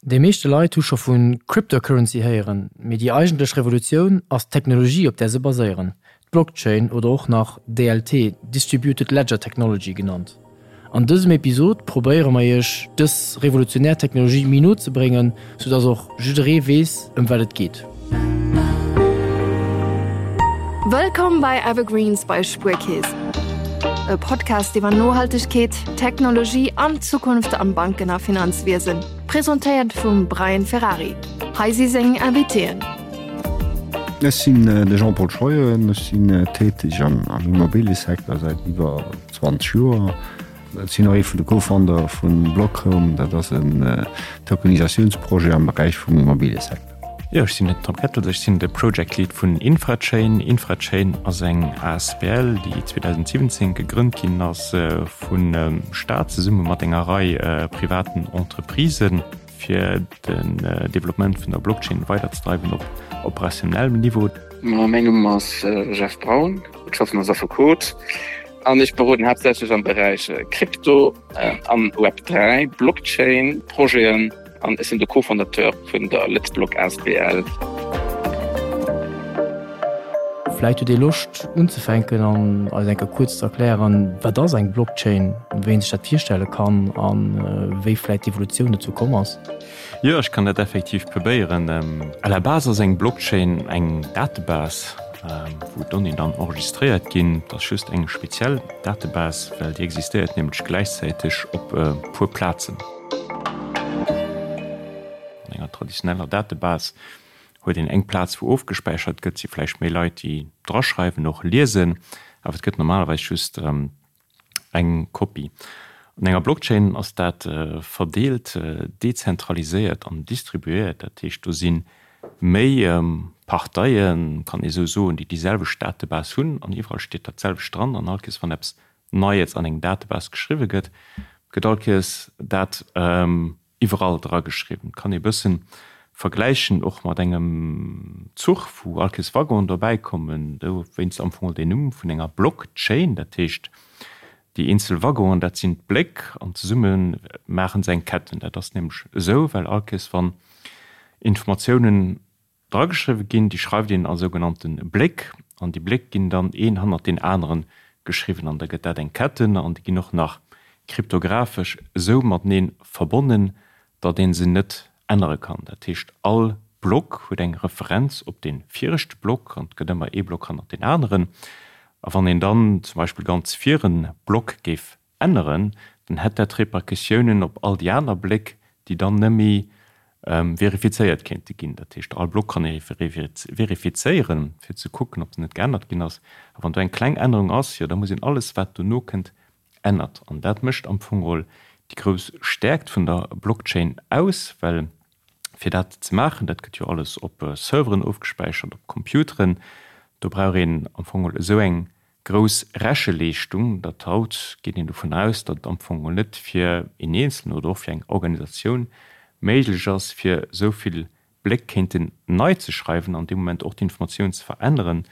Déi meeschte Leit hu scho vu Cryptocurrency héieren, mee déi eigentlech Revolutioun ass d'Technologie op där se baséieren, d'Blockchain oder och nach DLT, Distributed Ledger Technology, genannt. An dësem Episod probéiere mer iech dës revolutionär Technologie méi no ze bréngen, sou dass och jidderee weess ëm wat et geet. Wëllkomm bei Evergreens bei Spuerkeess, e Podcast iwwer Nohaltegkeet, Technologie an d'Zukunft am Banken a Finanzwiesen, presentéiert vum Brian Ferrari. Hei si seng Invitéen. Ech sinn de Jean-Paul Scheuren, ech sinn täteg am Immobiliësecteur säit iwwer 20 Joer. Ech sinn och ee vun de Co-Founder vu Blockhome, dat ass en Tokenisatiounsprojet am Beräich vum Immobiliësecteur. Jo, ech sinn den Tom Kettels, ech sinn de Project Lead vun Infrachain. Infrachain ass eng asbl, déi 2017 gegrënnt ginn ass vum Staat zesumme mat enger Rei privaten Entreprisen, fir den Developpement vun der Blockchain weiderzedreiwen op operationellem Niveau. Mäin Numm ass Jeff Braun, ech schaffen als Affekot an ech beroden haaptsächlech am Beräich Krypto an Web 3, Blockchain Projeten. An ech sinn de Co-Fondateur vun der Lëtzblock asbl. Vläit hutt Dir Loscht unzefänken an eis eng Kéier kuerz ze erklären, wat ass eng Blockchain, wéi een sech dat virstelle kann a wéi vläit d'Evolutioun dozou komm ass? Jo, ech kann dat effektiv probéieren. À la base ass eng Blockchain eng Datebase, wou d'Donnéeën dann enregistréiert ginn. Et ass just eng speziell Datebase, well déi existéiert nämlech gläichzäiteg op e puer Plazen. An enger traditioneller Datebase huet een eng Plaz wou ofgespäichert gëtt, si vläicht méi Leit déi draschreiwen, och liesen, awer et gëtt normalerweis just eng Kopie. An enger Blockchain ass dat verdeelt, dezentraliséiert an distribuéiert, dat heescht do si méi Parteien, kann ee sou soen, déi déi selwecht Datebase hunn an iwwerall steet dat selwecht dran an all Kees wann eppes Neies an eng Datebase geschriwwe gëtt, gëtt all Kees dat iwwerall dra geschriwwen. Kann ee bëssen vergläichen och mat engem Zuch, wou all Kees Waggonen dobäi kommen, dowéinst am Fong deen Numm vun enger Blockchain, dat heescht déi eenzel Waggonen, dat sinn d'Bléck an zesumme maachen se eng Ketten. Dat ass nämlech esou, well all Kees wann Informatiounen Drageschriwwe ginn, déi schreift een a sougenannte Bléck, an déi Bléck ginn dann een hannert deen anere geschriwwen an da gëtt dat eng Ketten an déi ginn och nach kryptographesch esou matenee verbonnen, datt ee se net ännere kann. Dat heescht, all Block huet eng Referenz op dee viregte Block an et gëtt ëmmer ee Block hannert deen aneren. A wann een dann zum Beispill ganz vir e Block géif änneren, dann hätt dat Repercussiounen op all déi aner Bléck, déi dann nëmme verifizéiert kéinte ginn. Dat heescht, all Block kann ee verifizéieren, fir ze kucken, ob en net geännert ginn ass. A wann do eng kleng Ännerung ass, jo da muss een alles, wat dono kënnt, ännert. An dat mécht am Fong geholl déi grouss Stäerkt vun der Blockchain aus, well fir dat ze maachen, dat gëtt jo alles op Serveren ofgespäichert, op Computeren, do brauch een am Fong geholl esou eng grouss Recheleeschtung, datt haut geet een dovun aus, datt et am Fong geholl net fir een Eenzelen oder och fir eng Organisatioun méiglech ass, fir esou vill Bléck kéinten nei ze schreiwen an dee Moment och d'Informatioun ze veränneren.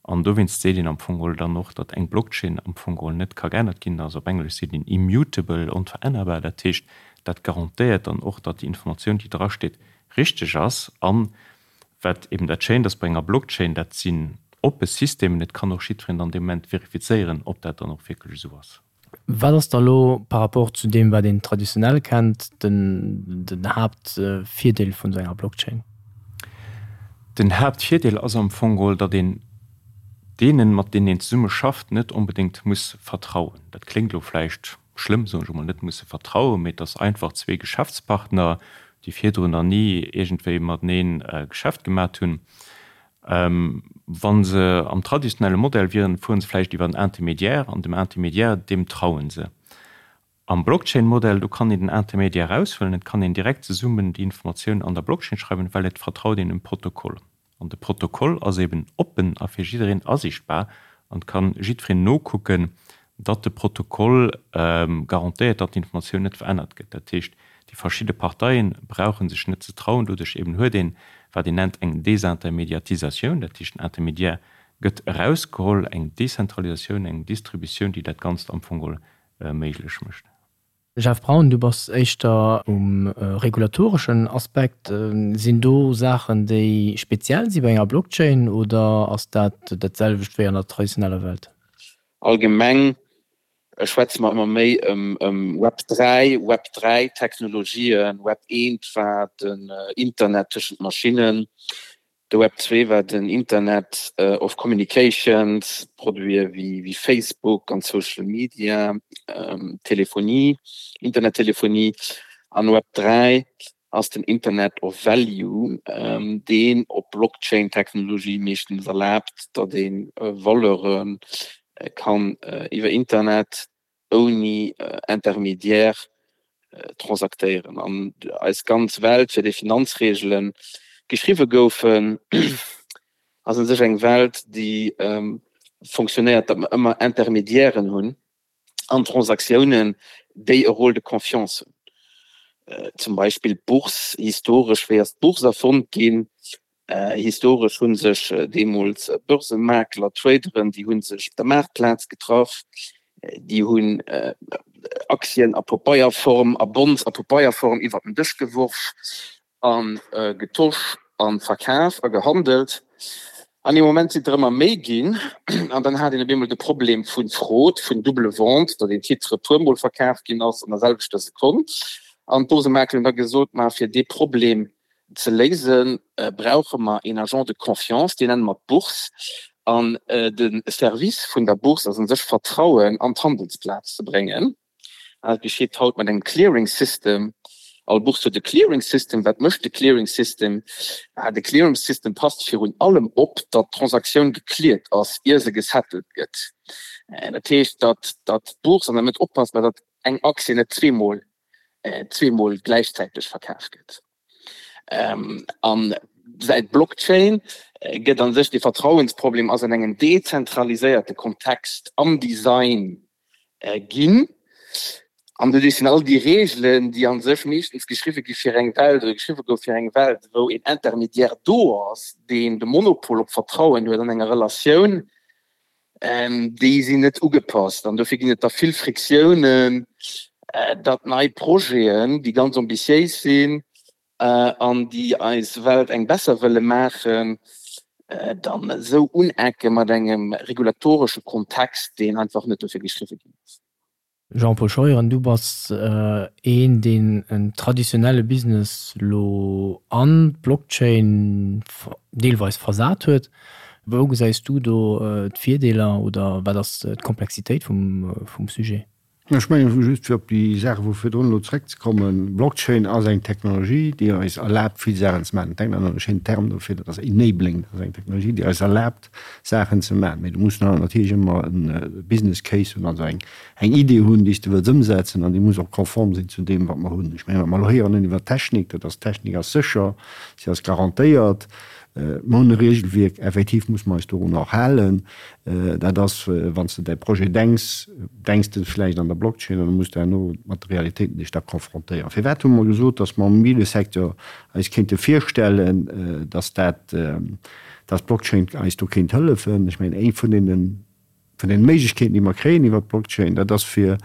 An dowéinst seet een am Fong geholl dann och, datt eng Blockchain am Fong geholl net ka geännert ginn. Also op Englesch seet een immutable, onverännerbar. Dat heescht, dat garantéiert dann och, datt déi Informatioun, déi drasteet, richteg ass. An Wat eben dat Schéint ass bei enger Blockchain, dat sinn oppe Systemen, et kann och jiddwereen dann dee Moment verifizéieren, ob dat dann och wierklech esou ass. Wat ass da lo par rapport zu deem, wat een traditionell kennt, den Haaptvirdeel vun esou enger Blockchain? Den Haaptvirdeel ass am Fong geholl, datt een deenen, mat deenen een zesumme schafft, net onbedéngt muss vertrauen. Dat kléngt elo vläicht schlëmm, soen ech emol, net musse vertrauen, mee dass einfach zwee Geschäftspartner, déi virdrun nach ni iergendwéi mateneen Geschäft gemat hunn, wa se am traditionelle Modell wieren, fuere se vläicht iwwer en Intermédiaire an dem Intermédiaire, deem traue se. Am Blockchain-Modell, do kann een den Intermédiaire eraushuelen, et kann een direkt zesummen déi Informatioun an der Blockchain schreiwen, well et vertraut een dem Protokoll. An de Protokoll ass eben oppen a fir jiddereen asiichtbar an et kann jiddwereen nokucken, datt de Protokoll garantéiert, datt d'Informatioun net verännert gëtt. Dat heescht, déi verschidde Parteie brauche sech net ze trauen. Doduerch eben huet een, wat een nennt eng Desintermediatisatioun, dat heescht den Intermédiaire gëtt erausgeholl, eng Dezentralisatioun, eng Distributioun, déi dat Ganzt am Fong geholl méiglech mécht. Jeff Braun, du bass éischter um regulatoreschen Aspekt. Sinn do Saachen, déi speziell si bei enger Blockchain oder ass dat dat selwecht wéi an der traditioneller Welt? Allgemeng schwätze mer ëmmer méi ëm Web 3, Web 3 Technologien. Web 1 war den Internet tëschent Maschinnen. De Web 2 war den Internet of Communications, Produite wéi Facebook an Social Media, Telefonie, Internettelefonie. An Web 3 ass den Internet of Value, deen op Blockchain-Technologie meeschtens erlaabt, datt ee Valeure kann iwwer Internet ouni Intermédiaire transaktéieren. An eis ganz Welt, fir déi Finanzreegele geschriwwe goufen, ass u sech eng Welt, déi fonctionnéiert, datt mer ëmmer Intermédiairen hunn an Transaktiounen, déi e Rôle de confiance hunn. Zum Beispill d'Bourse, historesch, wéi ass d'Bourse erfonnt ginn? Historesch hu sech deemools Börsemakler, Traderen, déi hu sech op der Maartplaz getraff, déi hunn Aktien a Pabeierform a Bonds a Pabeierform iwwer den Dësch geworf a getosch a verkaf a gehandelt. An ee Moment sinn der ëmmer méi ginn an dann hat een op eemol de Problem vu Fraude, vun double vente, datt een Titre e puermol verkaf ginn ass an der selwechter Sekonn. An d'Börsemakler hunn da gesot, Ma fir dee Problem ze léisen, brauche mer een Agent de confiance, deen nenne mer d'Bourse. An de Service vun der Bourse ass u sech, Vertrauen an d'Handelsplaz ze bréngen. Dat geschitt haut mat engem Clearing System. All Bourse huet e Clearing System. Wat mécht de Clearing System? De Clearing System passt virun allem op, datt d'Transaktioun gecleared ass, ier se gesettelt gëtt. Dat heescht, datt d'Bourse an der Mëtt oppasst, datt eng Aktie net zweemol zweemol gläichzäiteg verkaf gëtt. An säit Blockchain gëtt an sech de Vertrauensproblem ass an engem dezentraliséierte Kontext am Design ginn. An doduerch sinn all déi Reegelen, déi an sech meeschtens geschriwwe gi fir eng Welt oder geschriwwe gouf fir eng Welt, wou een Intermédiaire do ass, deen de Monopol op Vertrauen huet an enger Relatioun, Déi sinn net ugepasst an dofir ginn et da vill Friktiounen, datt nei Projeten, déi ganz ambitiéis sinn an déi eis Welt eng besser wëlle maachen, dann esou unecke mat engem regulatoresche Kontext, deen einfach net dofir geschriwwe ginn ass. Jean-Paul Scheuren, du bass een, deen en traditionelle Business elo an d'Blockchain deelweis versat huet. Wou gesäis du do d'Virdeeler oder wat ass d'Komplexitéit vum Sujet? Ech mengen, just fir op déi Saache vu virdrun elo zréckzekommen, Blockchain ass eng Technologie, déi eis erlaabt, vill Saachen ze maachen. Denkt an e schéinen Term dofir, dat ass enabling. Dat ass eng Technologie, déi eis erlaabt, Saachen ze maachen. Mee du muss natierlech ëmmer e Business Case hunn, also eng Idee hunn, déi s de wëlls ëmsetzen an déi muss och konform sinn zu deem, wat mer hunn. Ech mengen, wat mer elo héieren hunn iwwer d'Technik, dat ass, d'Technik ass sécher, si ass garantéiert. Mer hunn e Regelwierk, effektiv muss mer eis dorun och halen. Dat ass, wann s de däi Projet denks, denks de vläicht an der Blockchain an da muss de herno mat de Realitéiten dech da confrontéieren. Firwat hu mer gesot, datt mer am Immobiliësecteur eis kéinte virstellen, datt dat, dass d'Blockchain eis do kéint hëllefen. Ech mengen, eng vun deene, vun deene Méiglechkeeten, déi mer kréien iwwert d'Blockchain, dat ass fir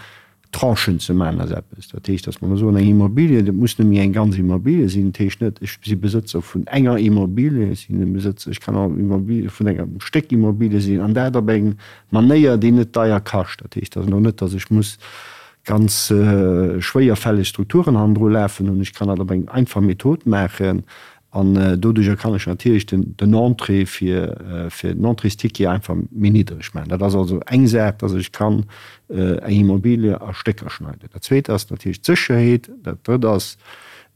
Tranchen ze maachen aus eppes. Dat heescht, dass mer elo soen, eng Immobilie, dat muss net méi eng ganz Immobilie sinn. Dat heescht net, ech si Besëtzer vun enger Immobilie, ech sinn e Besëtzer, ech kann och Immobilie vun engem Stéck Immobilie sinn, an dat op eng Manéier, déi net deier kascht. Dat heescht also elo net, dass ech muss ganz schwéierfälleg Strukturen hannendru lafen hunn. Ech kann dat op eng einfach Method maachen An doduerjer kann ech natierlech den Entrée fir den Entréesticket einfach méi niddreg maachen. Dat ass also eng Saach, dass ech kann eng Immobilie a Stécker schneiden. Dat Zweet ass natierlech d'Sécherheet. Dat Drëtt ass,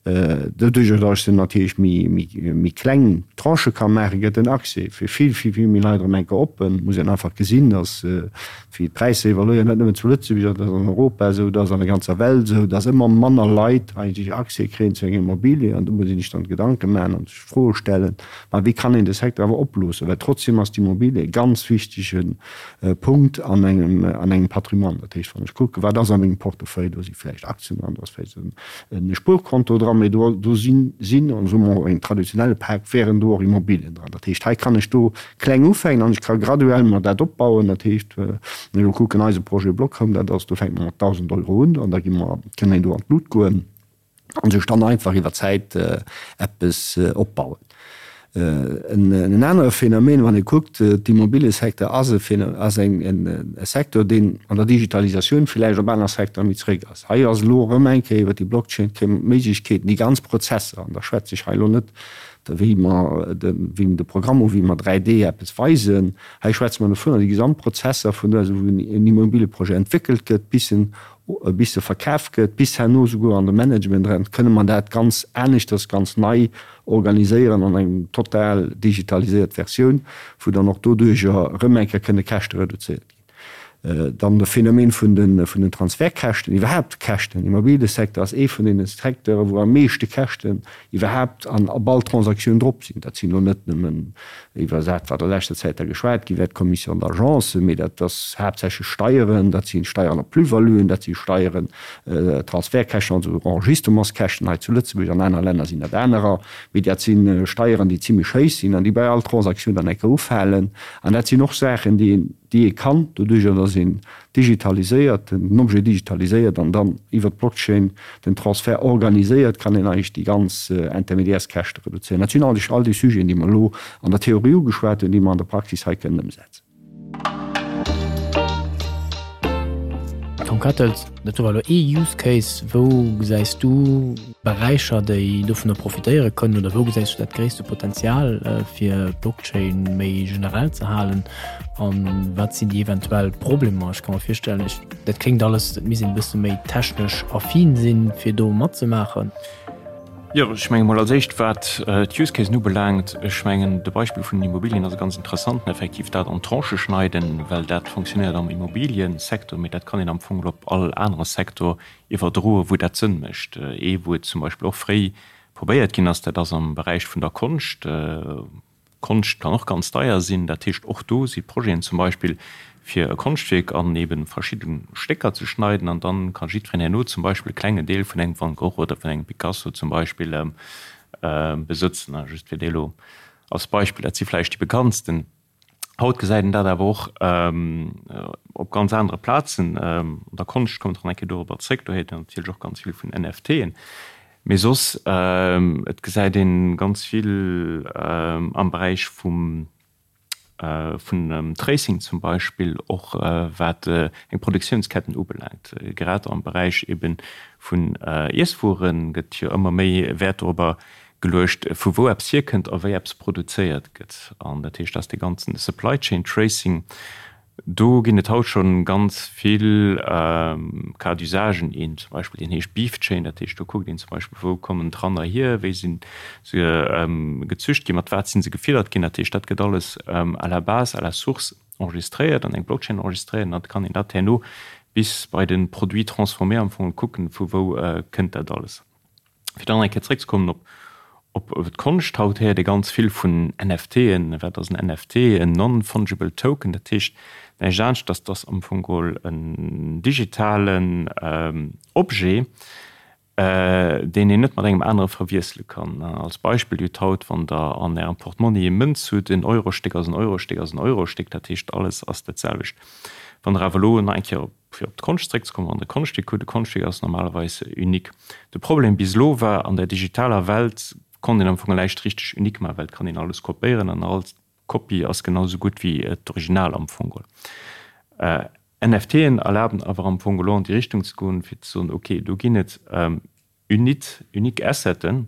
doduerjer, dass ech se natierlech méi kleng Tranchë ka maachen, gëtt den Accès fir vill, vill, vill méi Leit erëm eng Kéier oppen. Et muss een einfach gesinn, dass wéi d'Präisser evoluéieren, net nëmmen zu Lëtzebuerg, dat ass an Europa esou, dat ass an der ganzer Welt esou, dass ëmmer manner Leit eigentlech Accès kréien zu enger Immobilie. An do muss een sech dann Gedanke maachen an sech Froe stellen, ma wéi kann een de Secteur awer oploossen? Well trotzdem ass d'Immobilie e ganz wichtege Punkt an engem, an engem Patrimoine. Dat heescht, wann ech kucken, wat ass a mengem Portefeuille, do si vläicht Aktien dran, do ass vläicht e Spuerkonto dran. dran, mee do do sinn, sinn, an soe mer engem traditionelle Pak, wären do och Immobilien dran. Dat heescht, hei kann ech do kleng ufänken an ech ka graduell mer dat opbauen. Dat heescht, wann ech elo kucken, eise Projet Blockhome, dat ass, do fänke mer mat 1.000 Euro un an da gi mer, kënne een do an d'Lut goen. an sech dann einfach iwwer Zäit eppes opbauen. En anere Phänomen, wann ee kuckt, d'Immobiliesecteur ass e ass eng e Secteur, deen an der Digitalisatioun villäicht op aner Secteure méi zeréck ass. Hei ass elo erëm eng Kéier iwwer déi Blockchain kréie mer d'Méiglechkeeten, déi ganz Prozesser, an da schwätze ech hei elo net wéi mer de wéi de Programm u wéi mer 3D eppes weisen, hei schwätze mer dovunner, déi gesamt Prozesser vun do, wou en Immobilieprojet entwéckelt gëtt, bis en bis se verkaf gëtt, bis herno souguer an de Management eran, kënne mer dat ganz aneschters, ganz nei organiséieren an eng total digitaliséiert Versioun, wou dann och doduerjer erëm eng Kéier kënne Käschte reduzéiert ginn. Dann de Phänomen vun de vun den Transfertkäschten, iwwerhaapt Käschten. Immobiliësecteur ass ee vun deene Secteure wou am meeschte Käschten iwwerhaapt an op all Transaktioun drop sinn. Dat sinn elo net nëmmen iwwer dat, wat a leschter Zäit da geschwat gi wär, d'Commission d'agence, mee dat ass haaptsächlech Steieren, dat si Steieren op Plus-valuen, dat si Steieren, Transfertkäschten, also Enregistrementskäschten hei zu Lëtzebuerg, an anere Länner sinn dat anerer, mee dat si Steieren, déi zimlech héich sinn an déi bei all Transaktioun dann eng Kéier ufalen. An dat sinn och Saachen, déi een, déi ee kann, doduerjer datt een digitaliséiert, den Objet digitaliséiert an dann iwwer d'Blockchain den Transfert organiséiert, kann een eigentlech déi ganz Intermédiairskäschte reduzéieren. Dat sinn eigentlech all déi Sujeten, déi mer elo an der Theorie ugeschwat hunn, déi mer an der Praxis hei kënnen ëmsetzen. Tom Kattels, Dat do war elo ee Use Case. Wou gesäis du Beräicher, déi dovunner profitéiere kënnen oder wou gesäis du dat gréisste Potenzial, fir Blockchain méi generell ze halen? An wat sinn déi eventuell Problemer? Ech ka mer virstellen, ech, dat kléngt alles, et misst een e bësse méi technesch affin sinn, fir do matzemaachen. Jo, ech menge mol als éischt, wat d'Use Casen ubelaangt, ech mengen de Beispill vun den Immobilien ass e ganz interessanten, effektiv dat an Tranchë schneiden, well dat fonctionnéiert am Immobiliësecteur, mee dat kann een am Fong op all anere Secteur iwwerdroen, wou dat Sënn mécht. Ee wou et zum Beispill och fréi probéiert ginn ass, dat ass am Beräich vun der Konscht. Konscht kann och ganz deier sinn. Dat heescht, och do si Projeten zum Beispill, fir e Konschtwierk an eben verschidde Stécker ze schneiden an dann ka jiddwereen herno zum Beispill e klengen Deel vun engem Van Gogh oder vun engem Picasso zum Beispill besëtzen. Just fir déi elo als Beispill, dat si vläicht déi bekanntsten. Haut gesäit een dat awer och op ganz anere Plazen. An der Konscht, kommt nach eng Kéier dorobber zréck, do héiert een natierlech och ganz vill vun NFTen. Mee soss, et gesäit ee ganz vill am Beräich vum vun dem Tracing zum Beispill, och wat eng Produktiounsketten ubelaangt. Grad am Beräich ebe vun Iesswuere gëtt jo ëmmer méi Wäert dorobber geluecht, vu wou eppes hierkënnt a wéi eppes produzéiert gëtt. An dat heescht, dass dee ganzen Supply Chain Tracing, do ginn et haut scho ganz vill Cas d'usagen. Een zum Beispill, deen heescht Beef Chain, dat heescht, do kuckt een zum Beispill, wou kommen d'Ranner hier, wéi si se gezücht ginn, mat wat si se gefiddert ginn. Dat heescht, dat gëtt alles à la base, à la source enregistréiert, an eng Blockchain enregistréiert an da kann een dat herno bis bei de Produit transformé am Fong kucken, vu wou kënnt dat alles. Fir dann eng Kéier zréckzekommen op op d'Konscht, haut héiert ee ganz vill vun NFTen. Wat ass en NFT? En Non-Fungible Token, dat heescht näischt anescht, dass dass am Fong geholl en digitalen Objet, deen een net mat engem anere verwiessele kann. Als Beispill, Dir hutt haut, wann Der an Ärem Portmonni e Mënz hutt, en Eurostéck ass en Eurostéck ass en Eurostéck, dat heescht alles ass dat selwecht. Wann Der awer elo nach eng Kéier op Fir op d'Konscht zréckzekommen, wann de Konschtwierk hutt, e Konschtwierk ass normalerweis unique. De Problem bis elo war, an der digitaler Welt konnt een am Fong näischt richteg unique maachen, well et kann een alles kopéieren an all Kopie ass genau esou gutt wéi d'Original am Fong geholl. NFTen erlaben awer am Fong elo an déi Richtung ze goen, fir ze soen, ok, do ginn et unit, unique Asseten,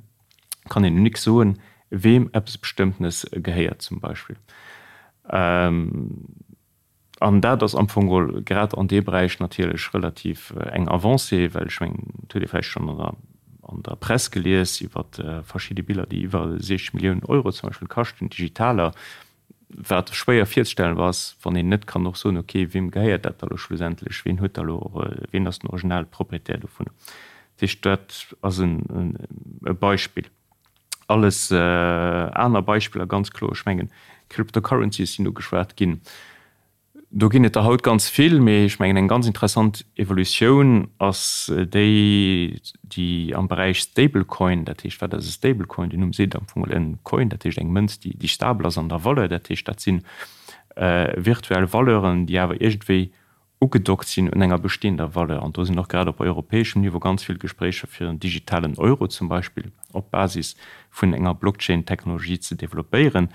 kann een unique soen, weem eppes Bestëmmtenes gehéiert zum Beispill. An dat ass am Fong geholl grad an deem Beräich natierlech relativ eng Avancée, well ech mengen, et huet ee vläicht schonn an der, an der Press gelies iwwer verschidde Biller, déi iwwer 60 Milliounen Euro zum Beispill kaschten, digitaler, wat schwéier virzestellen ass, wann een net kann och soen, okay, weem gehéiert dat da elo schlussendlech, ween huet da elo, ween ass den originale Proprietär dovun. Dat heescht, dat ass e Beispill. Alles aner Beispiller, ganz kloer, ech mengen, Cryptocurrencies sinn ugeschwat ginn. Do ginn et der haut ganz vill, mee ech mengen eng ganz interessant Evolutioun ass déi, déi am Beräich Stablecoin, dat heescht, wat ass e Stablecoin? Den Numm seet am Fong en Coin, dat heescht eng Mënz, déi stabel ass an der Valeur, dat heescht dat si virtuell Valeuren, déi awer iergendwéi ugedockt sinn un enger bestehender Valeur. An do sinn och grad op europäeschem Niveau ganz vill Gespréicher fir en digitalen Euro zum Beispill op Basis vun enger Blockchain-Technologie ze developpéieren,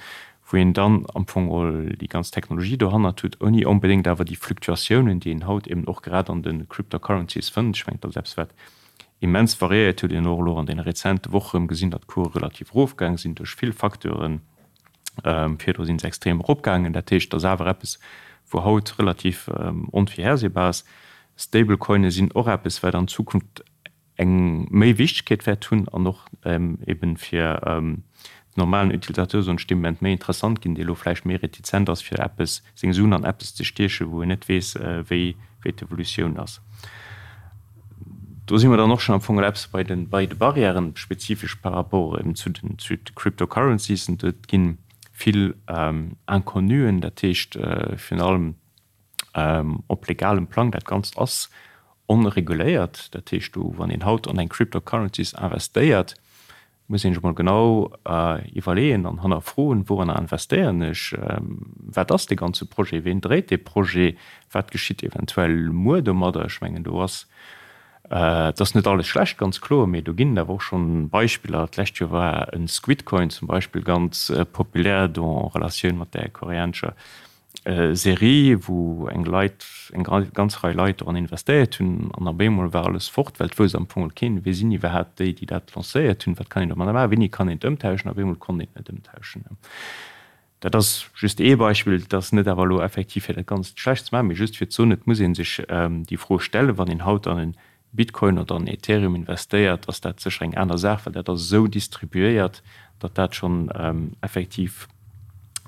wou een dann am Fong geholl déi ganz Technologie dohannert huet, ouni onbedéngt awer déi Fluctuatiounen, déi een haut eben och grad an de Cryptocurrencies fënnt. Ech mengen, dat ass eppes, wat immens variéiert huet, een och elo an deene rezente Woche erëm gesinn, datt d'Course relativ erofgaang sinn duerch vill Facteuren. Virdru sinn se extrem eropgaangen. Dat heescht, et ass awer eppes, wou haut relativ onvirhersehbar ass. Stablecoine sinn och eppes, wat an Zukunft eng méi Wichtegkeet wäert hunn an och eben fir den normalen Utilisateur, soen ech, dee Moment méi interessant ginn, dee elo vläicht méi retizent ass, fir eppes, seng Suen an eppes ze stiechen, wou en net weess, wéi d'Evolutioun ass. Do si mer dann och schonn am Fong eppes bei de bei de Barrièren, spezifesch par rapport eben zu den zu de Cryptocurrencies. Et gi vill Inconnuen, dat heescht virun allem op legalem Plang, dat Ganzt ass onreguléiert. Dat heescht do, wann een haut an eng Cryptocurrencies investéiert, muss een sech mol genau iwwerleeën an hannerfroen, Wouranner investéieren ech? Wat ass dee ganze Projet? Ween dréit dee Projet? Wat geschitt eventuell muer domadder? Ech mengen, do ass, et ass net alles schlecht, ganz kloer, mee do ginn et awer och schonn Beispiller. D'lescht Joer war e Squidcoin zum Beispill ganz populär, do en Relatioun mat där koreanescher Serie, wou eng Leit, eng ganz Rei Leit doran investéiert hunn an op eemol war alles fort, well et wousst am Fong keen, wie sinn iwwerhaapt déi, déi dat lancéiert hunn, wat kann een domadder maachen, wéini kann een et ëmtauschen. Op eemol konnt een et net ëmtauschen. Dat ass just ee Beispill, et ass net awer elo effektiv fir dat Ganzt schlecht ze maachen, mee just fir ze soen, et muss ee sech déi Fro stellen, wann een haut an en Bitcoin oder an Ethereum investéiert, ass dat sécher eng aner Saach, well dat ass esou distribuéiert, datt dat schonn effektiv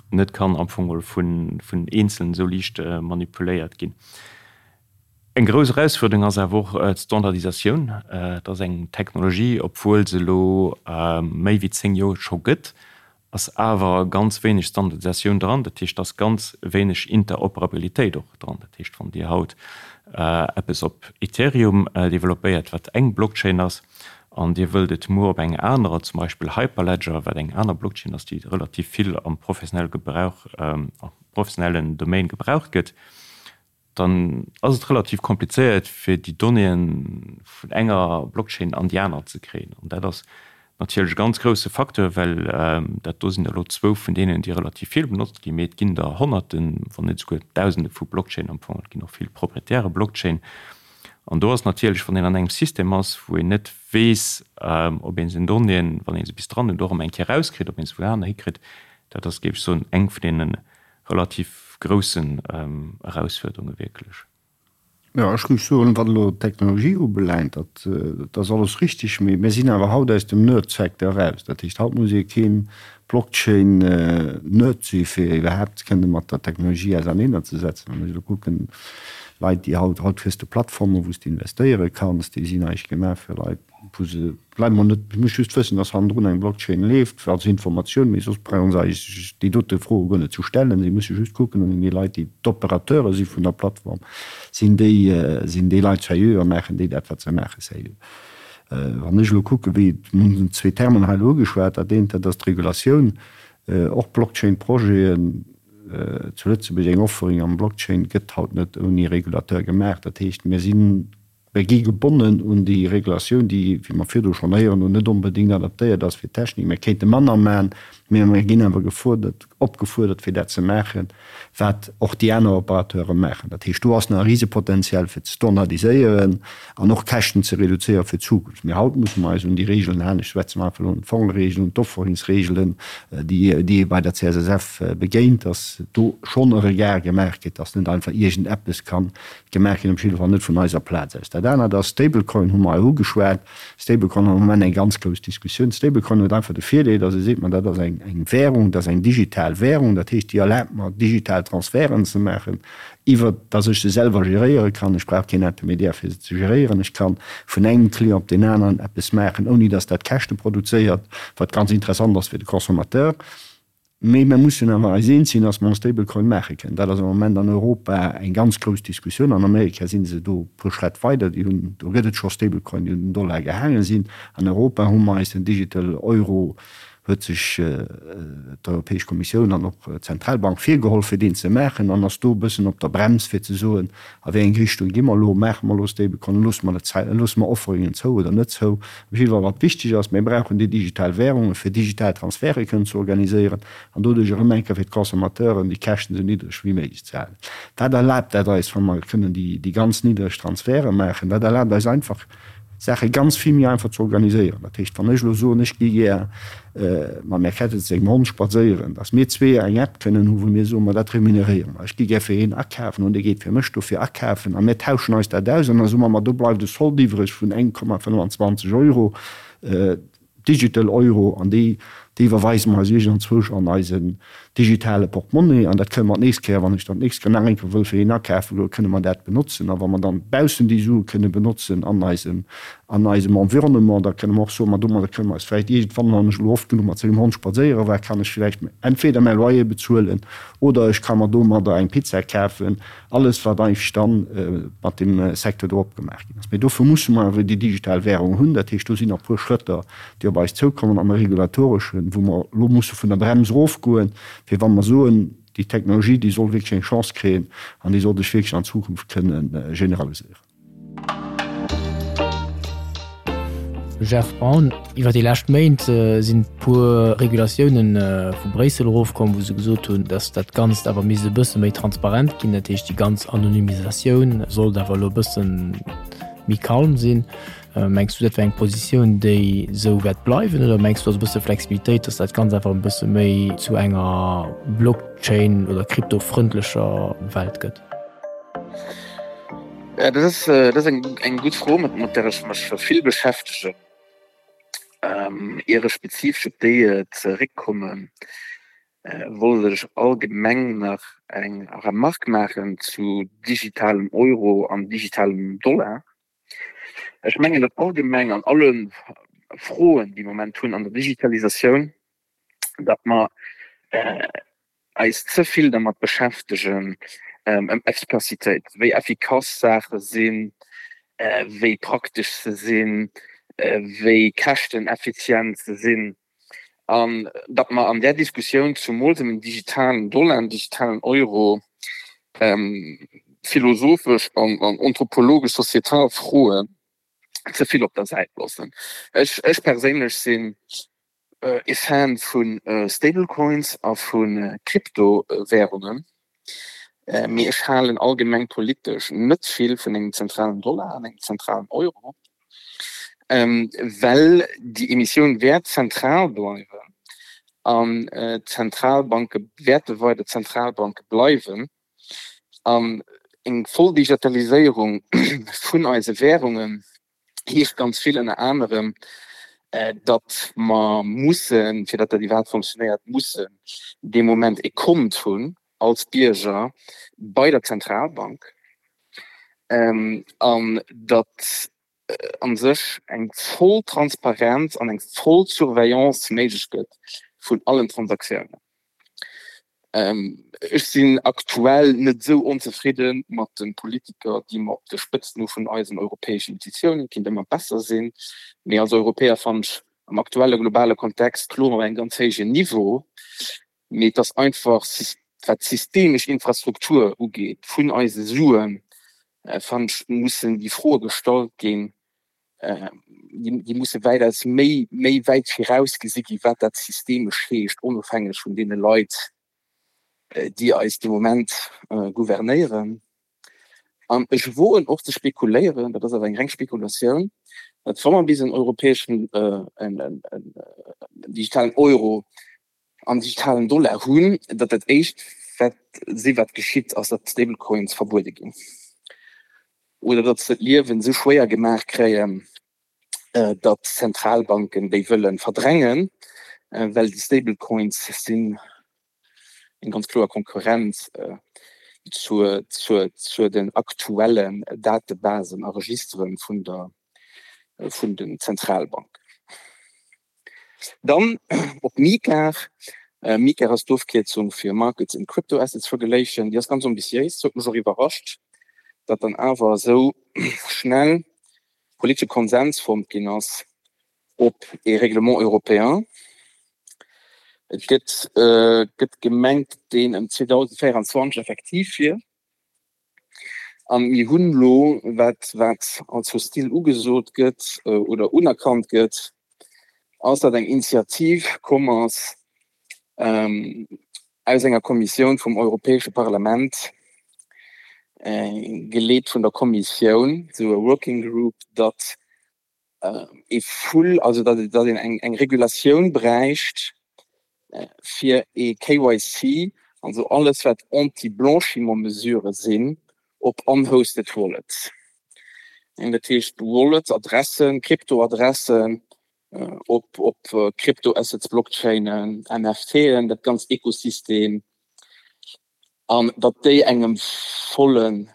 net kann am Fong geholl vun Eenzelen esou liicht manipuléiert ginn. Eng grouss Erausfuerderung ass awer och d'Standardisatioun. Et ass eng Technologie, obwuel se elo méi wéi 10 Joer scho gëtt, ass awer ganz wéineg Standardisatioun dran, dat heescht, et ass ganz wéineg Interoperabilitéit och dran. Dat heescht, wann Dir haut eppes op Ethereum developpéiert, wat eng Blockchain ass, an Dir wëllt et muer op eng anerer, zum Beispill Hyperledger, wat eng aner Blockchain ass, déi relativ vill am professionelle Gebrauch, am professionellen Domaine gebraucht gëtt, dann ass et relativ komplizéiert fir déi Donnéeën vun enger Blockchain an déi aner ze kréien. An dat ass natierlech e ganz grousse Facteur, well dat do sinn der elo zwou vun deenen, déi relativ vill benotzt ginn, mee et ginn der Honnerten, wann net esouguer Dausende vu Blockchainen am Fong. Et ginn och vill proprietäre Blockchain. An do ass natierlech, wann een an engem System ass, wou een net weess, ob ee seng Donnéeën, wann ee se bis dran huet, och erëm eng Kéier erauskritt, ob ee se wou aner hikritt, dat ass, géif ech soen, eng vun deene relativ groussen Erausfuerderunge wierklech. Jo, ech géif soen, wat elo d'Technologie ubelaangt, dat ass alles richtig, mee mir sinn awer haut aus dem Nerd-Secteur eraus. Dat heescht, haut muss ee kee Blockchain-Nerd si fir iwwerhaapt kënne mat der Technologie auserneenerzesetzen. Wann ech elo kucken, Leit, déi haut, haut kriss de Plattformen, wou s de investéiere kanns, déi sinn eigentlech gemaach fir Leit, wou se bleiwe mer net, ech muss just wëssen, dass hannendrun eng Blockchain leeft, als Informatioun, mee soss brauche se eigentlech déi dote Froe guer net ze stellen. Si musse just kucken, an déi Leit, déi d'Opérateure si vun der Plattform, sinn déi, sinn déi Leit sérieux a maachen déi dat, wat se maachen, sérieux. Wann ech elo kucken, wéi, mir hunn zwee Termen hei elo ugeschwat, dat eent, dat ass d'Regulatioun, och Blockchain-Projeten zu Lëtzebuerg, eng Offering am Blockchain gëtt haut net ouni Regulateur gemaach. Dat heescht, mir sinn, Mir gi gebonnen un déi Regulatioun, déi, wéi mer virdu schonn héieren hunn, net onbedéngt adaptéiert ass fir d'Technik. Mir kéinte manner maachen, mä mir ginn awer gefuerdert, opgefuerdert, fir dat ze maachen, wat och déi aner Opérateure maachen. Dat heescht, do ass nach e Risepotenzial, fir ze standardiséieren an och Käschten ze reduzéieren fir d'Zukunft. Mee haut musse mer eis un déi Regeln halen. Ech schwätze mer einfach elo un d'Fongeregeln, un d'Offerungsregelen, déi ee bei der CSSF begéint, dass do schonn e Regard gemaach gëtt, dass net einfach iergendeppes kann Gemaach ginn, op jidde Fall net vun eiser Plaz aus. Dat anert ass, Stablecoin hu mer hei ugeschwat. Stablecoin ass am Moment eng ganz grouss Diskussioun. Stablecoin huet einfach de Virdeel, datt ee seet, ma dat ass eng eng Währung, dat ass eng digital Währung, dat heescht, déi erlaabt mer, digital Transferten ze maachen, iwwer datt ech se selwer geréiere kann. Ech brauch keen Intermédiaire, fir se ze geréieren. Ech kann vun engem Client op deen aneren eppes maachen, ouni datt dat Käschte produzéiert, wat ganz interessant ass fir de Consommateur. Mee mir mussen awer eis eens sinn, dass mer en Stablecoin maache kënnen. Dat ass am Moment an Europa eng ganz grouss Diskussioun. An Amerika si se do e puer Schrätt weider. Déi hunn, do gëtt et scho Stablecoin, déi un den Dollar gehaange sinn. An Europa hu mer eis den Digital Euro, huet sech d'Europäesch Kommissioun an och d'Zentralbank virgeholl, fir deen ze maachen, an ass do e bëssen op der Brems, fir ze soen, A wéi eng Richtung gi mer elo? Maache mer elo Stablecoin? Loosse mer net, loosse mer Offeringen zou oder net zou? Op jidde Fall, wat wichteg ass, Mir brauchen déi digital Währungen, fir digital Transferte kënnen ze organiséieren an doduerch erëm eng Kéier fir d'Consommateuren déi Käschten esou niddreg wéi méiglech ze halen. Dat erlaabt dat eis, wa mer kënnen déi ganz niddreg Transferte maachen, dat erlaabt eis einfach, Saache ganz vill méi einfach ze organiséieren. Dat heescht, wann ech elo soen, ech gi gär mam Här Kettet sengem Hond spadséieren, datt mir zwee eng App kënnen hu wou mir soen, ma dat remuneréiere mer, ech gi gär fir hien akafen an dee geet fir mech dofir akafen a mir tauschen eis dat aus an da soe mer, ma do bleift e Solde iwwreg vun 1,25 Euro. Digital Euro, an déi, déi iwwerweise mer eis iergendzwousch an eisen digitale Portemonnaie. An dat kënne mer d'nächst Kéier, wann ech dann d'nächst Kéier nach eng Kéier wëll fir een akafe goen, kënne mer dat benotzen. A wa mer dann baussen déi Sue kënne benotzen an eisem, an eisem Environnement, da kënne mer och soen, ma domadder kënne mer eis vläicht iergendwann, wann ech elo oft genuch mat sengem Hond spadséiere war, kann ech vläicht entweder mäi Loyer bezuelen oder ech ka mer domadder eng Pizza kafen. Alles, wat eigentlech da mat deem Secteur do opgemaach ginn ass. Mee dofir musse mer awer déi digital Währung hunn. Dat heescht, do sinn nach e puer Schrëtter, déi op eis zoukommen am Regulatoreschen, wou mer elo musse vun der Brems erofgoen, fir wa mer soen, déi Technologie, déi soll wierklech eng Chance kréien an déi soll sech wierklech an Zukunft kënne generaliséieren. Jeff Braun, Iwwer déi lescht Méint sinn e puer Regulatiounen vu Bréissel erofkomm, wou se gesot hunn, datt dat Ganzt awer misst e bësse méi transparent ginn. Dat heescht, déi ganz Anonymisatioun sollt awer elo e bësse méi calm sinn. Mengs du, dat wär eng Positioun, déi esou wäert bleiwen oder mengs du, do ass e bësse Flexibilitéit, datt dat Ganzt einfach e bësse méi zu enger Blockchain oder kryptofrëndlecher Welt gëtt? Ja, dat ass, dat ass eng, eng gutt Fro, mat, mat där ech mech vill beschäftegen. Ähm, ier ech spezifesch op déi zeréckkommen, wollt ech allgemeng nach eng Remarque maachen zu digitalem Euro an digitalem Dollar. Ech mengen, datt allgemeng an alle Froen, déi mer am Moment hunn an der Digitalisatioun, datt mer eis ze vill dermat beschäftegen, ëm Effikassitéit, wéi effikass Saache sinn, wéi praktesch se sinn, wéi käschteneffizient se sinn, an datt mer an där Diskussioun zumools ëm en digitalen Dollar, en digitalen Euro, philosophesch an anthropologesch, societal Froen ze vill op der Säit loossen. Ech perséinlech sinn E Fan vu Stablecoins a vu Kryptowärungen, mee ech halen allgemeng politesch net vill vun engem zentralen Dollar an engem zentralen Euro, well déi Emissioun wäert zentral bleiwen an d'Zentralbanke wäerte weider Zentralbanke bleiwen an eng voll Digitaliséierung vun eise Wärungen heescht ganz vill ënner anerem, datt mer mussen, fir datt dat iwwerhaapt fonctionnéiert, mussen dee Moment e Kont hunn als Bierger bei der Zentralbank an datt a sech eng voll Transparenz an eng voll Surveillance méiglech gëtt vun allen Transaktiounen. Ech sinn aktuell net esou onzefridde mat de Politiker, déi mer op de Spëtzen hu vun eisen europäeschen Institutiounen. Et kinnt ëmmer besser sinn, mee als Europäer fannen ech am aktuelle globale Kontext kloer op engem ganz héijen Niveau. Mee et ass einfach, wat d'systemesch Infrastruktur ugeet vun eise Suen, fannen ech, mussen déi Froe gestallt ginn, déi musse wäitaus méi, méi wäit viraus gesi gi wat dat systemesch heescht, onofhängeg vun deene Leit, déi eis de Moment gouvernéieren. An ech woen och ze spekuléieren, dat ass awer eng reng Spekulatioun, datt wa mer bis en europäeschen, en digitalen Euro an digitalen Dollar hunn, datt dat éischt wat si wat geschitt ass, datt d'Stablecoins verbuede ginn oder datt se d'Liewen esou schwéier gemaach kréien, datt d'Zentralbanken déi wëlle verdrängen, well déi Stablecoins sinn eng ganz kloer Konkurrenz zur, zur, zur den aktuellen Datebasen a Registeren vun der, vun den Zentralbanken. Dann op MiCAR. MiCAR ass d'Ofkierzung fir Markets in Crypto Assets Regulation. Déi ass ganz ambitiéis. Huet mech och iwwerrascht, datt dann awer esou schnell politesche Konsens fonnt ginn ass op ee Règlement européen. Et gëtt gëtt gemengt, deen ëm 2024 effektiv wier. An mir hunn elo, wat wat als hostil ugesot gëtt oder unerkannt gëtt, ass, datt eng Initiativ komm ass aus enger Kommissioun vum Europäesche Parlament, geleet vun der Kommissioun, esou e Working Group, datt ee full, also datt datt een eng eng Regulatioun bräicht fir ee KYC, also alles wat Anti-Blanchiment-Mesurë sinn, op unhosted Wallets. Dat heescht Wallets, Adressen, Kryptoadressen op op Kryptoassets, Blockchainen, NFTen, dat ganzt Ekosystem, an datt déi engem volle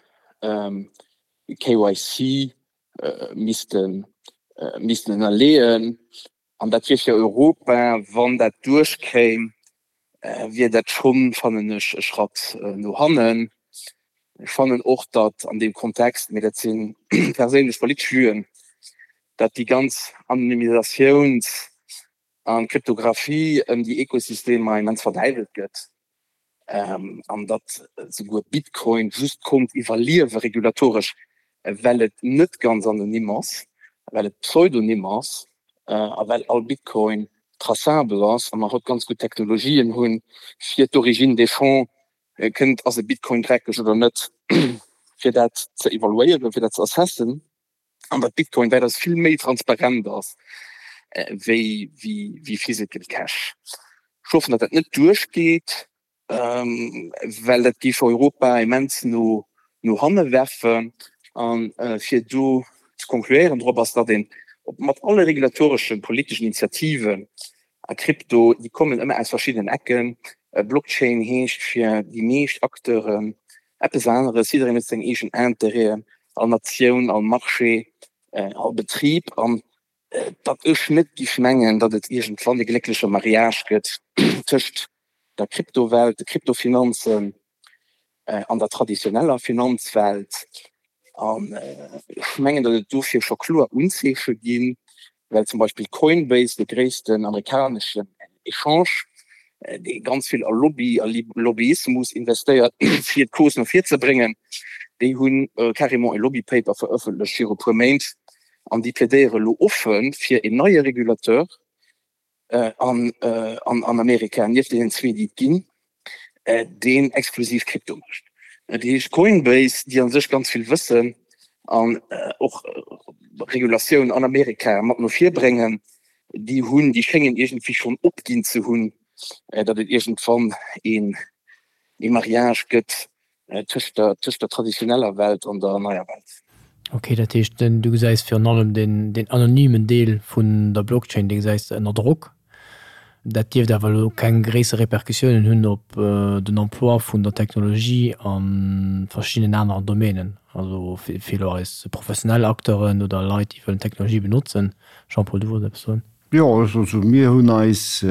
KYC missten missten ënnerleeën. An dat wier fir Europa, wann dat duerchkéim, wier dat schonn, fannen ech, e Schratt no hannen. Ech fannen och, datt an deem Kontext, mee dat si perséinlech politesch Vuen, datt déi ganz Anonymisatiouns a Kryptographie ëm déi Ekosystemer immens verdäiwelt gëtt an datt souguer Bitcoin just konnt iwwerliewe regulatoresch, well et net ganz anonym ass, well et pseudonym ass a well all Bitcoin traçabel ass a mer haut ganz gutt Technologien hunn, fir d'Origine des fonds, kënnt, ass e Bitcoin dreckeg oder net, fir dat ze evaluéieren, fir dat ze assessen. An datt Bitcoin wäitaus vill méi transparent ass wéi wéi physical cash. Ech hoffen, datt dat net duerchgeet, well dat géif Europa immens no no hanne werfen. A fir do ze konkluéieren drop ass, datt een mat alle regulatoreschen, politeschen Initiativen a Krypto, déi kommen ëmmer aus verschiddenen Ecken, Blockchain heescht fir déi meescht Acteuren eppes aneres, jiddereen huet seng eegen Interêten, all Natioun, all Marché, all Betrib, an datt ech net giff mengen, datt et iergendwann e gléckleche Mariage gëtt tëscht der Kryptowelt, de Kryptofinanzen an der traditioneller Finanzwelt. An ech mengen, datt et dofir scho kloer Unzeeche ginn, well zum Beispill Coinbase, de gréissten amerikaneschen Echange, dee ganz vill a Lobby a Lobbyismus investéiert, fir d'Cause no vir ze bréngen, déi hu carrément e Lobby-Paper verëffentlecht viru puer Méint an déi plädéiere lo offe fir een neie Regulateur, an Amerika, nieft deenen zwee, déi et ginn, deen exklusiv Krypto mécht. Dat heescht Coinbase, déi a sech ganz vill wëssen an och Regulatioun an Amerika mat no vir bréngen, déi hunn, déi schéngen iergendwéi schonn opginn ze hunn, datt et iergendwann ee Mariage gëtt Tëscht der, tëscht der traditioneller Welt an der neier Welt. Ok, dat heescht du gesäis virun allem deen, deen anonymen Deel vun der Blockchain, dee gesäis de ënner Drock. Dat dierft awer elo keng gréisser Repercussiounen hunn op den Emploi vun der Technologie a verschiddenen aneren Domänen, also fir elo eis professionell Acteuren oder Leit, déi wëllen d'Technologie benotzen. Jean-Paul, du wollts eppes soen? Jo, also mir hunn eis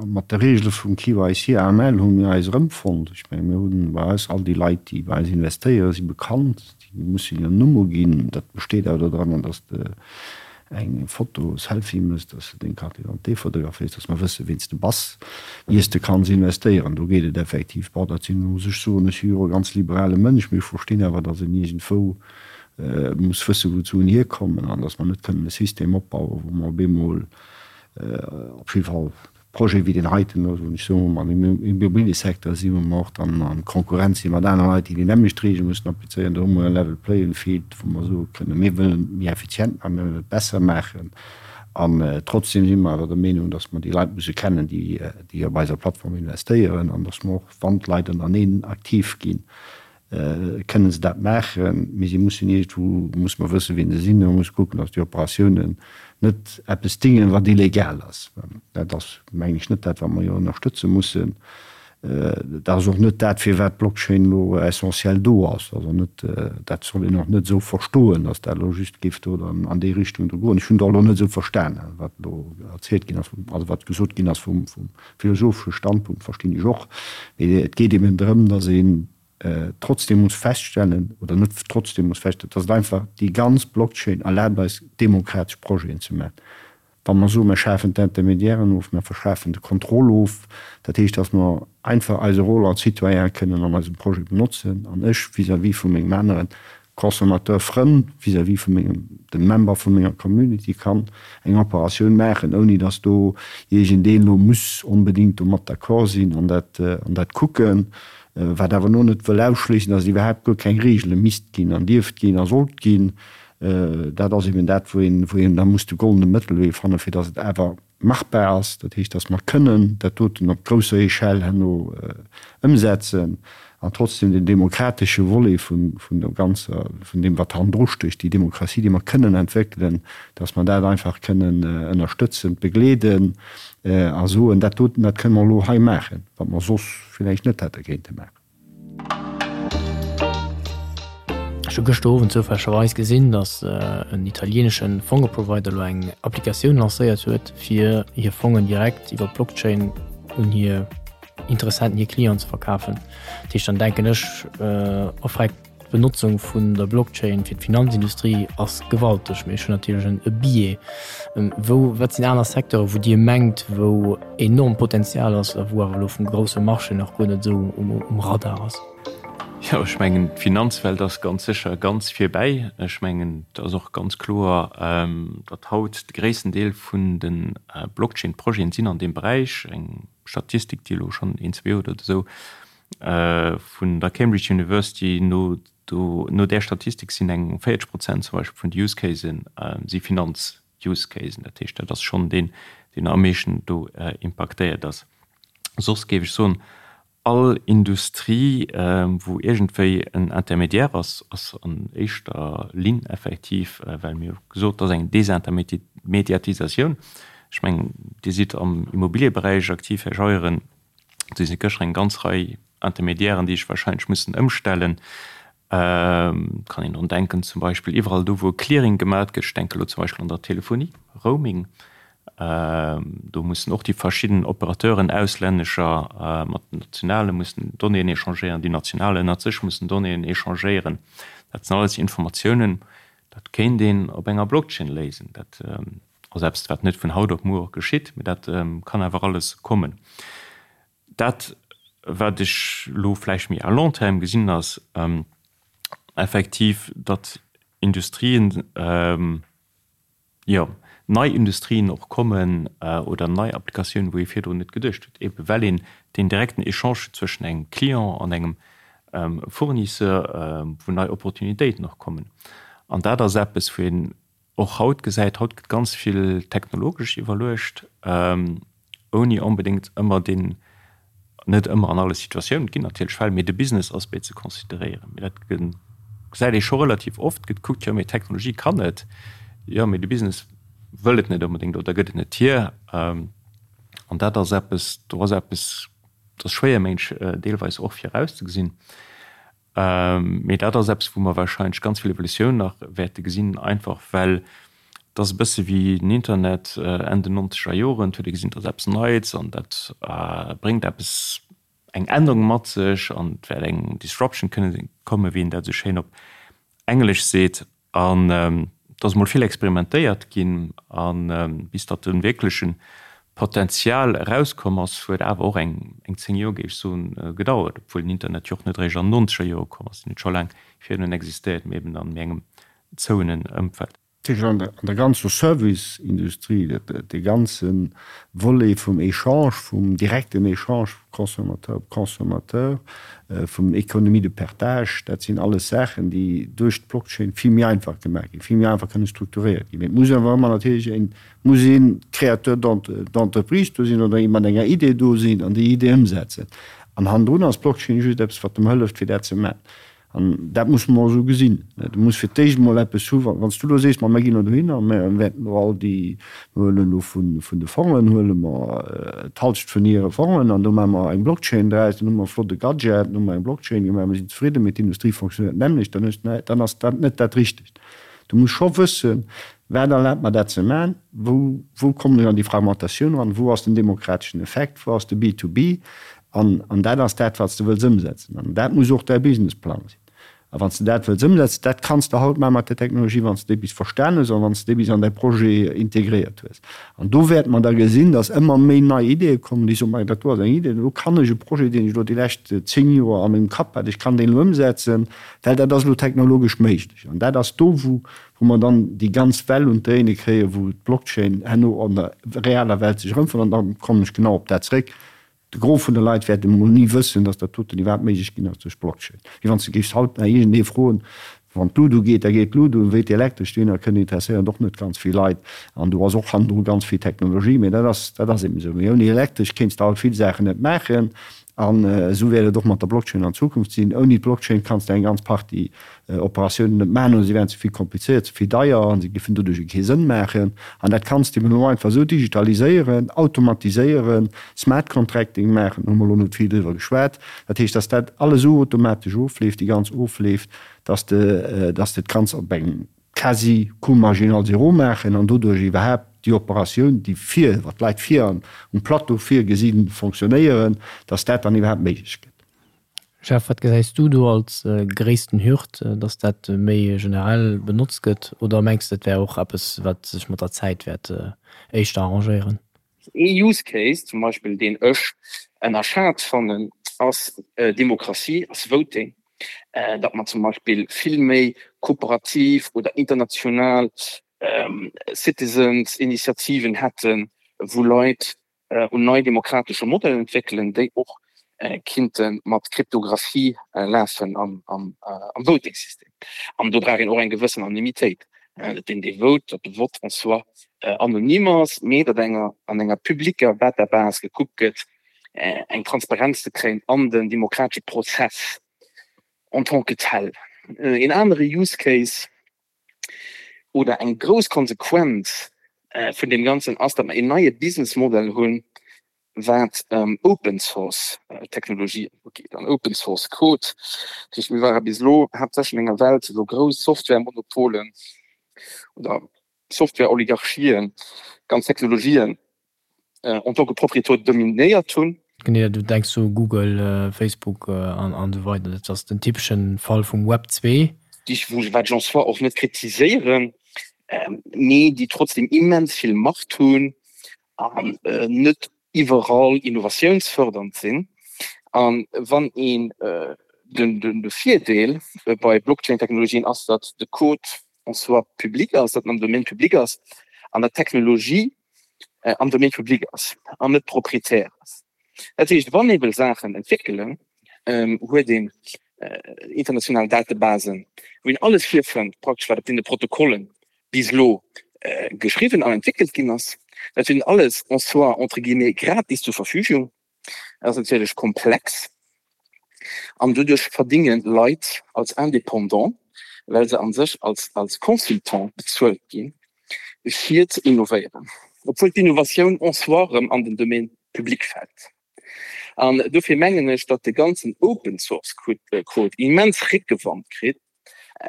mat de Reegele vum KYC, AML hu mir eis erëmfonnt. Ech menge mir hunn bei eis all déi Leit, déi bei eis investéieren, si bekannt, déi mussen hiren Numm uginn. Dat besteet awer dodranner, datt s de eng Foto, Selfie méchs, datt s de deng Carte d'identité fotograféiers, datt mer wëssen, ween s de bass, ier s de kanns investéieren. Do geet et effektiv. Bon, dat sinn, muss ech soen, ech si jo e ganz liberale Mënsch, mee ech verstinn awer, datt een iergendwou muss wëssen, wou d'Suen hierkommen an datt mer net kënnen e System opbauen, wou mer op eemol op jidde Fall Projete wéi deen heiten, wou ech soen, wou mer am Immobiliësecteur sinn, wou mer och dann a Konkurrenz si mat anere Leit, déi déi nämmlecht Reegele mussen applizéieren, do hu mer e Level playing field, wou mer soe kënnen, mir wëllen et méi effizient maachen, mir wëllen et besser maachen an trotzdem si mer awer der Meenung, datt mer déi Leit musse kennen, déi op eiser Plattform investéieren an datt mer och, wann d'Leit ënnereneen aktiv ginn, kënnen se dat maachen, mee si mussen iergendwou, muss mer wëssen, wien se sinn, a muss kucken, datt déi Operatiounen net eppes dingen, wat illegal ass. Dat ass, mengen ech, net dat, wat mer jo ënnerstëtze mussen. Dat ass och net dat, firwat d'Blockchain elo essentiell do ass. Also net, dat soll een och net esou verstoen, datt dat elo just géif do dann an déi Richtung do goen. Ech hunn et och elo net esou verstanen, wat elo erzielt ginn ass, also wat gesot ginn ass vum philosophesche Standpunkt, verstinn ech och. Mee et geet eben drëm, datt een trotzdem muss feststellen, oder net trotzdem muss feststellen, datt et einfach déi ganz Blockchain erlaabt eis, demokratesch Projeten ze maachen. Wa mer soen, mer schafen d'Intermédiairen of, mer verschafen de Contrôle of, dat heescht, datt mer einfach eise Rôle als Citoyen kënnen an eisem Projet benotzen, an ech vis-à-vis vu mengem anere Consommateur Frënn, vis-à-vis vu mengem, dem Member vu menger Community kann eng Operatioun maachen, ouni datt do iergendeen elo muss onbedéngt domat d'accord sinn an dat, an dat kucken, wat awer elo net wëll ausschléissen, datt et iwwerhaapt guer keng Regele misst ginn an dierft ginn a sollt ginn. Dat ass eben dat, wou een, wou een da muss de goldene Mëttelwee fannen, fir datt et awer machbar ass. Dat heescht, datt mer kënnen dat doten op grousser Echelle herno ëmsetzen an trotzdem den demokratesche Volet vun, vun der ganzer, vun deem, wat hannendru stécht, déi Demokratie, déi mer kënnen entwéckelen, datt mer dat einfach kënnen ënnerstëtzen, begleeden a soen, dat doten, dat kënnen mer elo hei maachen, wat mer soss villäicht net hätte kéinte maachen. Ech hu gëschter Owend zoufällegerweis gesinn, datt en italienesche Fongeprovider elo eng Applikatioun lancéiert huet, fir hir Fongen direkt iwwer d'Blockchain un hir Interessenten, hir Clienten ze verkafen. Dat heescht, dann denken ech, offrekt d'Benotzung vun der Blockchain fir d'Finanzindustrie ass gewalteg. Mee ech hunn natierlech e Biais. Wou, wat sinn aner Secteure wou Dir mengt, wou enorm Potenzial ass a wou awer elo vum grousse Marché nach guer net esou um Radar ass? Jo, ech mengen, d'Finanzwelt ass ganz sécher ganz virbäi. Ech mengen, et ass och ganz kloer, datt haut de gréissten Deel vun de Blockchain-Projeten sinn an deem Beräich. Eng Statistik, déi elo schonn een, zwee Joer oder esou vun der Cambridge University no, do, no där Statistik sinn eng 40 Prozent zum Beispill vun de Use Casen si Finanz Use Casen. Dat heescht, dat ass schonn deen, deen am meeschten do impaktéiert ass. Soss géif ech soen, all Industrie, wou iergendwéi en Intermédiaire ass, ass an éischter Linn effektiv, well mir hu gesot, et ass eng Desintermediatisatioun. Ech mengen, Dir sidd am Immobilieberäich aktiv, Här Scheuren. Do si gëschter eng ganz Rei Intermédiairen, déi sech wahrscheinlech mussen ëmstellen. Et kann een drun denken, zum Beispill iwwerall do, wou e Clearing gemat gëtt, ech denke elo zum Beispill an der Telefonie, Roaming, do mussen och déi verschidden Operateuren, auslännescher mat den nationale mussen Donnéeën échangéieren, déi national ënnert sech mussen Donnéeën échangéieren. Dat sinn alles Informatiounen, dat kéint een op enger Blockchain léisen. Dat ass eppes, wat net vun haut op muer geschitt, mä dat kann awer alles kommen. Dat, wat ech elo vläicht méi à long terme gesinn, ass effektiv, datt Industrien, jo, nei Industrien och kommen oder nei Applikatiounen, wou ee virdrun net geduecht huet, eebe well een deen direkten Echange huet zwëschen engem Client an engem Fournisseur, wou nei Opportunitéiten och kommen. An dat ass eppes, wou een och haut gesäit, haut gëtt ganz vill technologesch iwwerluecht, ouni onbedéngt ëmmer deen, net ëmmer an alle Situatiounen, et ginn natierlech Fäll, mee de Business Aspect ze consideréieren. Mee dat gesäit ee scho relativ oft, gëtt gekuckt, jo mee d'Technologie kann et, jo mee de Business wëll et net onbedéngt oder gëtt et net hier. An dat ass eppes, do ass eppes, dat ass schwéier mensch deelweis och virauszegesinn. Mee dat ass eppes, wou mer warscheinlech ganz vill Evolutioun nach wäerte gesinn, einfach well et ass e bësse wéi den Internet Enn den nonzeger Joren. Et huet ee gesinn, et ass eppes Neits an dat bréngt eppes, eng Ännerung mat sech an et wäert eng Disruption kënne kommen, wéi een dat esou schéin op Englesch seet. An et ass emol vill experimentéiert ginn, a bis datt de wierkleche Potenzial erauskomm ass, huet awer och eng 10 Joer, géif ech soen, gedauert, obwuel den Internet jo och net eréischt an den nonzeger Jore komm ass. Deen huet scho laang virdrun existéiert, mee eben an méi engem zouenen Ëmfeld. An der ganzer Service-Industrie, dee ganze Volet vum Echange, vum direkten Echange Consommateur op Consommateur, vum Économie de partage, dat sinn alles Saachen, déi duerch d'Blockchain vill méi einfach gemaach ginn, vill méi einfach kënne strukturéiert ginn. Mee et muss awer ëmmer natierlech een, muss ee Créateur d'entreprise do sinn oder ee mat enger Idee do sinn an déi Idee ëmsetzen. An hannendrun ass d'Blockchain just eppes, wat dem hëlleft, fir dat ze maachen. An dat musse mer esou gesinn. Du muss fir d'éischt emol eppes hu wann s du elo sees, ma mir ginn elo dohinner a mir wäerten elo all déi, mir huelen elo vun de Fongen, huele mer d'Halschent vun hire Fongen an do maache mer eng Blockchain draus, dann hu mer e flotte Gadget, dann hu mer eng Blockchain gemaach, mir sinn zefridden, mee d'Industrie fonctionnéiert d'nämmlecht, dann hues de, dann ass dat net dat Richtegt. Du muss scho wëssen, wat erlaabt mer dat ze maachen, wou, wou kommen ech an déi Fragmentatioun eran, wou ass den demokrateschen Effekt, wou ass de B-to-B, An, an dat ass dat, wat s de wëlls ëmsetzen. An dat muss och däi Businessplang sinn. A wann s de dat wëlls ëmsetzen, dat kanns de haut maache mat där Technologie, wann s de déi bis verstan hues an wann s de déi bis an däi Projet integréiert hues. An do wäerte mer da gesinn, dass ëmmer méi nei Ideeë kommen, déi soen, Majo, dat do ass eng Idee, do kann ech e Projet, deen ech elo déi lescht 10 Joer a mengem Kapp hat, ech kann deen elo ëmsetzen, well dat ass elo technologesch méiglech. An dat ass do, wou, wou mer dann déi ganz Well un d'Dréine kréien, wou d'Blockchain herno an der realer Welt sech erëmfënnt. An da kommen ech genau op dat zréck, De Gros vun de Leit wäert emol ni wëssen, dass dat doten iwwerhaapt méiglech ginn ass duerch Blockchain. Wéi wann s de géifs haut nach iergendee froen, wann d'Lut ugeet, da geet d'Lut un, wéi d'Elektresch dohinner kënnt, interesséiert och net ganz vill Leit. An do ass och hannendru ganz vill Technologie, mee dat ass, dat ass eben esou. Mee ouni Elektresch kéints de haut vill Saachen net maachen. An esou wäert et och mat der Blockchain an Zukunft sinn. Ouni d'Blockchain kanns de eng ganz Partie Operatiounen net maachen oder si wären ze vill komplizéiert, ze vill deier a se géifen doduerch kee Sënn maachen. An dat kanns de eben elo einfach esou digitaliséieren, automatiséieren, Smart Contracting maachen, hu mer elo net vill driwwer geschwat. Dat heescht, dass dat alles esou automatesch ofleeft, déi ganz ofleeft, dass de, dass de et kanns op engem quasi Coût marginal zéro maachen an doduerch iwwerhaapt déi Operatioun, déi vir, wat d'Leit vir um Plateau virgesinn, fonctionnéieren, dass dat dann iwwerhaapt méiglech gëtt. Jeff, wat gesäis du do als gréissten Hürd, dass dat méi generell benotzt gëtt? Oder mengs de et wär och eppes wat sech mat der Zäit wäert éischter arrangéieren? Ee Use Case zum Beispill deen ech ënnerschat fannen ass Demokratie, ass Voting, datt mer zum Beispill vill méi kooperativ oder international Citizens Initiativen hätten, wou Leit un nei demokratesche Modellen entwéckelen, déi och kinnte mat Kryptographie lafen am Voting-System. An do brauch een och eng gewëssen Anonymitéit, datt deen, dee vote, datt de Vott en soi anonym ass, mee datt enger an enger publicker Database gekuckt gëtt, eng Transparenz ze kréien an den demokratesche Prozess en tant que tel. Een anere Use Case, oder eng grouss Konsequenz vun deem Ganzen ass, datt mer een neie Businessmodell hunn, wat Open Source Technologien ugeet an Open Source Code. Dat heescht, mir ware bis elo haaptsächlech an enger Welt, wou grouss Softwaremonopolen oder Softwareoligarchien ganz Technologien en tant que Propriétaire dominéiert hunn. Genee, du denks u Google, Facebook an esou weider. Dat ass den typeschen Fall vum Web 2. Déi wat ech en soi och net kritiséieren, mee déi trotzdem immens vill Macht hunn an net iwwerall innovatiounsfördernd sinn. A wann een de Virdeel bei Blockchain-Technologien ass, datt de Code en soi public ass, datt en am Domaine public ass an datt d'Technologie am Domaine public ass an net propriétaire ass. Dat heescht, wann ee wëll Saachen entwéckelen, huet een international Datebasen, wou een alles virfënnt, praktesch wat op deene Protokollen bis elo geschriwwen an entwéckelt ginn ass. Dat huet een alles en soi entre guillemets gratis zur Verfügung. Dat ass natierlech komplex an doduerch verdinge Leit als Indépendant, well se a sech als als Consultant bezuelt ginn, fir ze innovéieren, obwuel d'Innovatioun en soi erëm an den Domaine public fält. An dofir mengen ech, datt de ganzen Open-Source-Code immens Réckewand kritt,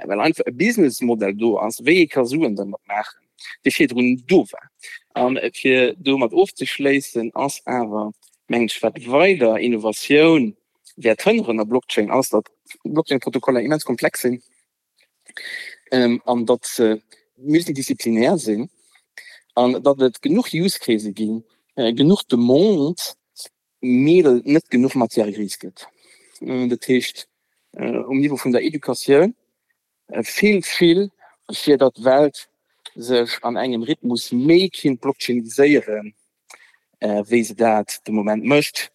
well einfach e Businessmodell do ass, wéi ee ka Suen dermat maachen, dee virdrun do war. A fir domat ofzeschléissen, ass awer, mengen ech, wat weider Innovatioun wäert hënneren a Blockchain, ass, datt Blockchain-Protokoller immens komplex sinn an datt se multidisziplinär sinn an datt et genuch Use Case ginn, genuch Demande, mee datt et net genuch Matière grise gëtt. Dat heescht, um Niveau vun der Educatioun feelt vill, fir datt d'Welt sech an engem Rhythmus méi kinnt blockchainiséieren, wéi se dat de Moment mécht.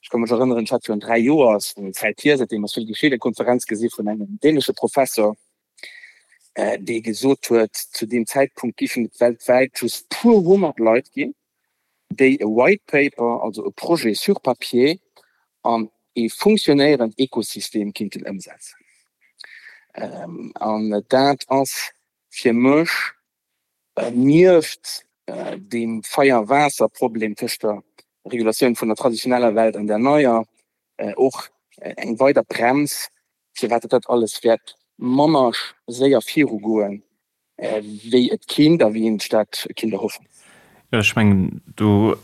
Ech ka mech erënneren, ech hat virun 3 Joer, ass eng Zäit hier, säitdeem ass vill geschitt, eng Konferenz gesi vun engem dänesche Professor, dee gesot huet, zu deem Zäitpunkt géifen et weltwäit just puer 100 Leit ginn, déi e White Paper, also e Projet sur papier, an ee funktionéierend Ekosystem kinnten ëmsetzen. An dat ass fir mech nieft deem Feier-Waasser-Problem tëscht der Regulatioun vun der traditioneller Welt an där neier och eng weider Brems, firwat dat alles wäert manner séier virugoen, wéi et kinnt a wéi een sech dat kinnt erhoffen. Jo, ech mengen, do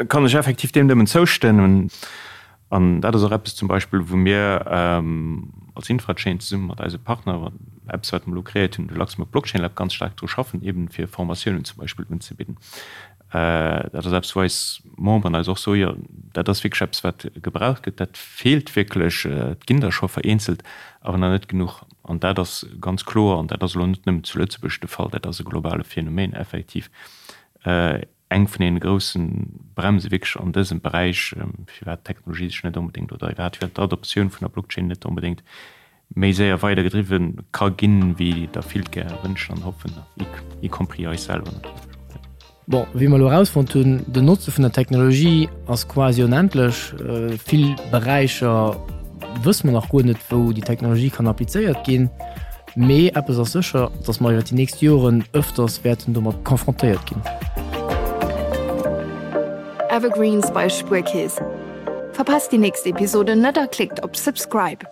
kann ech effektiv deem nëmmen zoustëmmen. An dat ass och eppes zum Beispill, wou mir als Infrachain zesumme mat eise Partner, eppes wat mer elo kreéiert hunn, de Luxembourg Blockchain Lab, ganz staark dru schaffen, eeben fir Formatiounen zum Beispill unzebidden. Dat ass eppes, wou eis Memberen eis och soen, jo, dat ass wierklech eppes, wat gebraucht gëtt, dat feelt wierklech. Et ginn der scho vereenzelt, awer nach net genuch. An dat ass ganz kloer, an dat ass elo net nëmmen zu Lëtzebuerg de Fall, dat ass e globale Phänomen effektiv, eng vun deene grousse Bremse wierklech an dësem Beräich, firwat d'Technologie sech net onbedéngt oder iwwerhaapt firwat d'Adoptioun vun der Blockchain net onbedéngt méi séier weider gedriwwe ka ginn, wéi der vill gär wënschen an hoffen, y compris eis selwer natierlech. Bon, wéi mer elo erausfonnt hunn, den Notze vun der Technologie ass quasi onendlech. Vill Beräicher wësse mer nach guer net, wou déi Technologie kann applizéiert ginn. Mee eppes ass sécher, dass mer iwwer déi nächst Joren ëfters wäerten domat confrontéiert ginn. Evergreens bei Spuerkeess. Verpasst déi nächst Episode net a klickt op Subscribe.